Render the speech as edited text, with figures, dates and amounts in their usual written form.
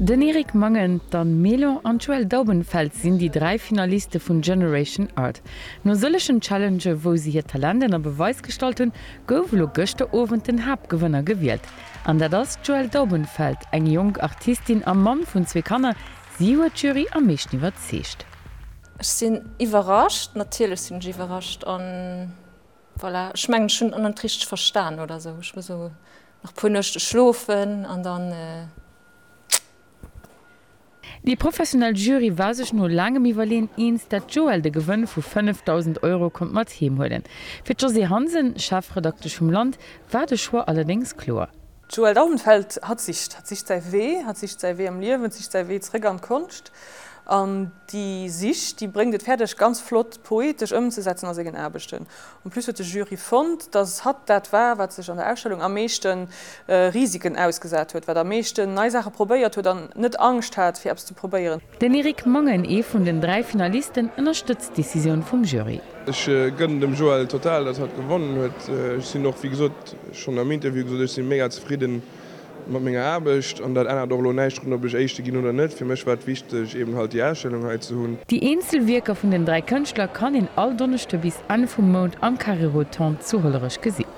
Den Eric Mangen, d'Anne Mélan an d'Joëlle Daubenfeld sinn déi 3 Finaliste vun Generation Art. No sëllegen Challengë wou se hiert Talent ënner Beweis gestallt hunn, gouf elo gëschter Owend den Haaptgewënner gewielt. An dat ass d'Joëlle Daubenfeld, eng jonk Artistin a Mamm vun zwee Kanner. Si huet d'Jury am meeschten iwwerzeegt. Ech sinn iwwerrascht, natierlech sinn ech iwwerrascht an voilà, ech mengen ech hunn et net richteg verstan oder sou. Ech muss elo nach puer Nuechte schlofen an dann. Déi professionell Jury war sech no laangem Iwwerleeën eens, dat d'Joëlle de Gewënn vu 5.000 Euro konnt mat heem huelen. Fir d'Josée Hansen, Chefredaktesch vum Land, war de Choix allerdéngs kloer. D'Joëlle Daubenfeld, hatt sicht. Hatt sicht säi Wee, hatt sicht säi Wee am Liewen, sicht säi Wee zeréck an d'Konscht. An déi Sich, déi bréngt et fäerdeg, ganz flott poetesch ëmzesetzen a sengen Aarbechten. En plus huet de Jury fonnt, dass hatt dat war, wat sech an der Ausstellung am meeschte Risiken ausgesat huet, wat am meeschten nei Saache probéiert huet an net Angscht hat, fir eppes ze probéieren. Den Eric Mangen, ee vun den 3 Finalisten, ënnerstëtzt d'Decisioun vum Jury. Ech gënnen dem Joël total, dass hatt gewonnen huet. Ech sinn och, wéi gesot, schonn am Interview gesot, ech si mega zefridden mat menger Aarbecht an dat ännert och elo näischt drun, ob ech Éischte ginn oder net. Fir mech war et wichteg, eben halt déi Ausstellung hei ze hunn. Déi eenzel Wierker vun den 3 Kënschtler kann een all Donneschde bis Enn vum Mount am Carré Rotonde zu Hollerech gesinn.